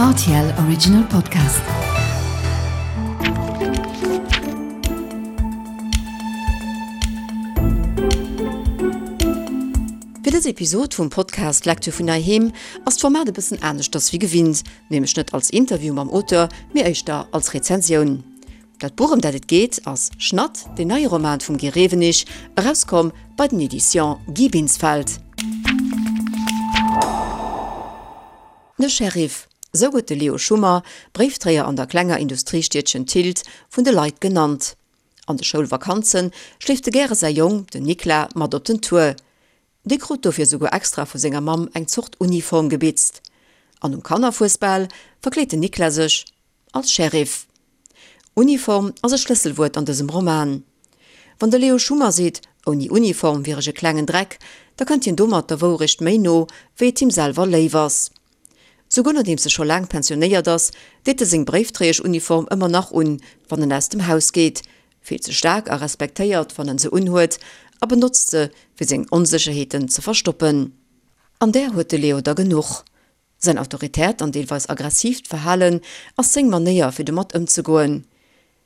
Rtl Original Podcast. Fir dës Episod vum Podcast Lecture vun heiheem ass d'Format e bëssen aneschters wéi gewinnt, nämlech net als Interview mam Auteur, mee éischter als Rezensioun. Dat Buch ëm dat et geet ass Schnatt, deen neie Roman vum Guy Rewenig, erauskomm bei den Editions Guy Binsfeld. De Sheriff, sou gëtt de Leo Schummer, Bréifdréier an der klenger Industriestiedchen Tilt, vun de Leit genannt. An de Schoulvakanze schleeft e gäre säi Jong, den Nikla, mat op den Tour. Dee krut dofir souguer extra vu senger Mamm eng Zort Uniform gebitzt. An um Kannerfuesbal verkleet den Nikla sech als Sheriff. Uniform ass e Schlësselwuert an dësem Roman. Wann de Leo Schummer seet, ouni Uniform wier ech e klengen Dreck, da kënnt hien domat der Wourecht méi no, wéi et him selwer léif ass. Souguer nodeems e scho laang pensionéiert ass, deet e seng Bréifdréieschuniform ëmmer nach un, wann en aus dem Haus geet, fillt sech staark a respektéiert, wann en se unhuet, a benotzt se, fir seng Onsécherheeten ze verstoppen. An där huet de Leo der genuch. Säin autoritäert an deelweis aggressiivt Verhalen ass seng Manéier fir domat ëmzegoen.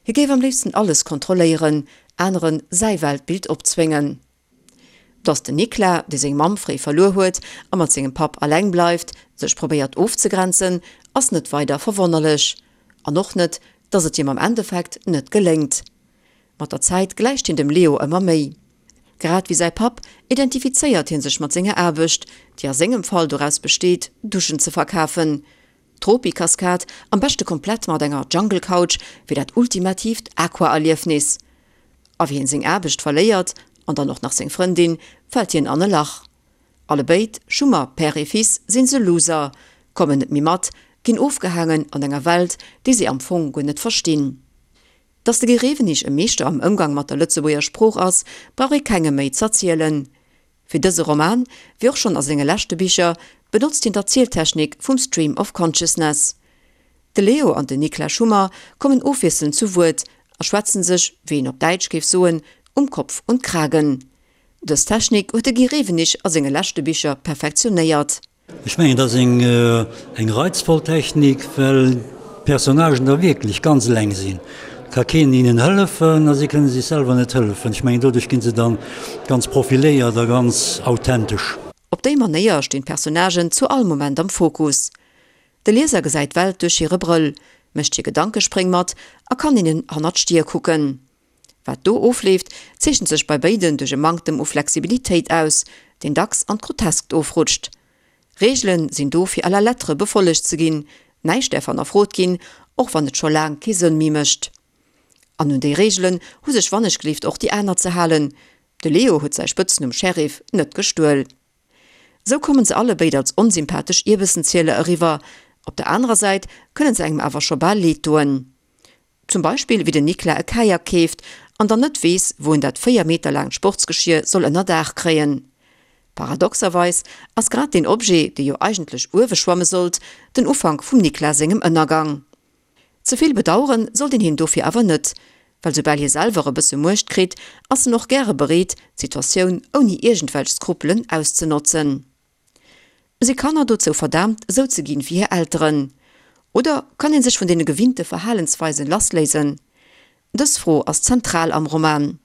Hie géif am léifsten alles kontrolléieren, anere säi Weltbild opzwéngen. Datt den Nikla, dee seng Mamm fréi verluer huet a mat sengem Papp alleng bleift, sech probéiert ofzegrenzen, ass net weider verwonnerlech. An och net, datt et him am Endeffekt net geléngt. Mat der Zäit gläicht hien dem Leo ëmmer méi. Grad wéi säi Papp identifizéiert hie sech mat senger Aarbecht, déi a sengem Fall doraus besteet, Duschen ze verkafen. D'Tropikaskad, am beschte komplett mat enger Jungle Couch, fir dat ultimatiivt Aqua-Erliefnis. A wéi hien seng Aarbecht verléiert, an dann och nach seng Frëndin, fält hien an e Lach. Allebéid, Schummer, Père et Fils, sinn se Loser, kommen net méi mat, ginn ofgehaangen an enger Welt, déi si am Fong guer net verstinn. Datt de Guy Rewenig e Meeschter am Ëmgang mat der Lëtzebuerger Sprooch ass, brauch ee kengem méi z'erzielen. Fir dëse Roman, wéi och schonn a senge leschte Bicher, benotzt hien d'Erzieltechnik vum Stream of Consciousness. De Leo an den Niklas Schummer kommen ofwiesselnd zu Wuert a schwätzen sech, wéi een op Däitsch géif soen, um Kopf und Kragen. Dës Technik huet de Guy Rewenig a senge leschte Bicher perfektionéiert. Ech mengen, et ass eng reizvoll Technik, well d'Personnagen da wierklech ganz eleng sinn. Et ka keen hinnen hëllefen a si kënne sech selwer net hëllefen. Ech mengen, doduerch gi se dann ganz profiléiert a ganz authentesch. Op déi Manéier stinn d'Personnagen zu all Moment am Fokus. De Lieser gesäit d'Welt duerch hire Brëll, mécht hir Gedankespréng mat a kann hinnen hannert d'Stier kucken. Wat do ofleeft, zeechent sech bei béiden duerch e Manktem u Flexibilitéit aus, deen dacks an d'Groteskt ofrutscht. Reegele sinn do fir à la lettre befollegt ze ginn, näischt däerf hannerfrot ginn, och wann et scho laang kee Sënn méi mécht. An un déi Reegelen hu sech wannechgelift och déi aner ze halen, de Leo huet säi Spëtznumm Sheriff net gestuel. Sou kommen se allebéid als onsympathesch Ierbëssenzieler eriwwer, op der anerer Säit kënne se engem awer scho bal leed doen. Zum Beispill wéi den Nikla e Kajak keeft an dann net weess, wou en dat 4 Meter laangt Sportsgeschier soll ënner Daach kréien. Paradoxerweis ass grad deen Objet, dee jo eigentlech uewe schwamme sollt, den Ufank vum Nikla sengem Ënnergang. Ze vill bedauere sollt een hien dofir awer net, well soubal hie selwer e bësse Muecht kritt, ass en och gäre bereet, d'Situatioun ouni iergendwelch Skrupelen auszenotzen. Si Kanner dozou verdaamt, esou ze ginn wéi hir Elteren? Oder kann ee sech vun deene gewinnte Verhalensweisen lassléisen? Dës Fro ass zentral am Roman.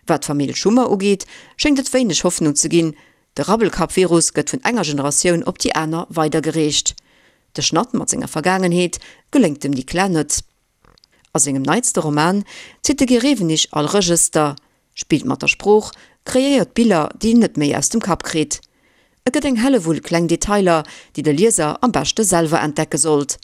Wat d'Famill Schummer ugeet, schéngt et wéineg Hoffnung ze ginn, de Rabbelkapp-Virus gëtt vun enger Generatioun op déi aner weidergereecht. De Schnatt mat senger Vergaangenheet geléngt dem Nicolas net. A sengem neitste Roman zitt de Guy Rewenig all Regëster, spillt mat der Sprooch, kreéiert Biller, déi een net méi aus dem Kapp kritt. Et gëtt eng Hellewull kleng Detailer, déi de Lieser am beschte selwer entdecke sollt.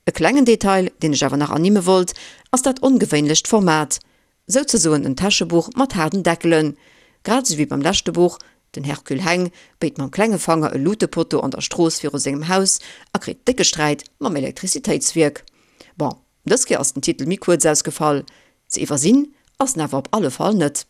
E klengen Detail, deen ech awer nach ernimme wollt, ass dat ongewéinlecht Format, Souzesoen en Täschebuch mat haarden Deckelen. Grad esou wéi beim leschte Buch, Den Hercule Heng béit mam klenge Fanger e Lutepotto an der Strooss viru sengem Haus a kritt décke Sträit mam Elektrizitéitswierk. Bon, dës Kéier ass den Titel méi kuerz ausgefall. Ze iwwersinn ass en awer op alle Fall net.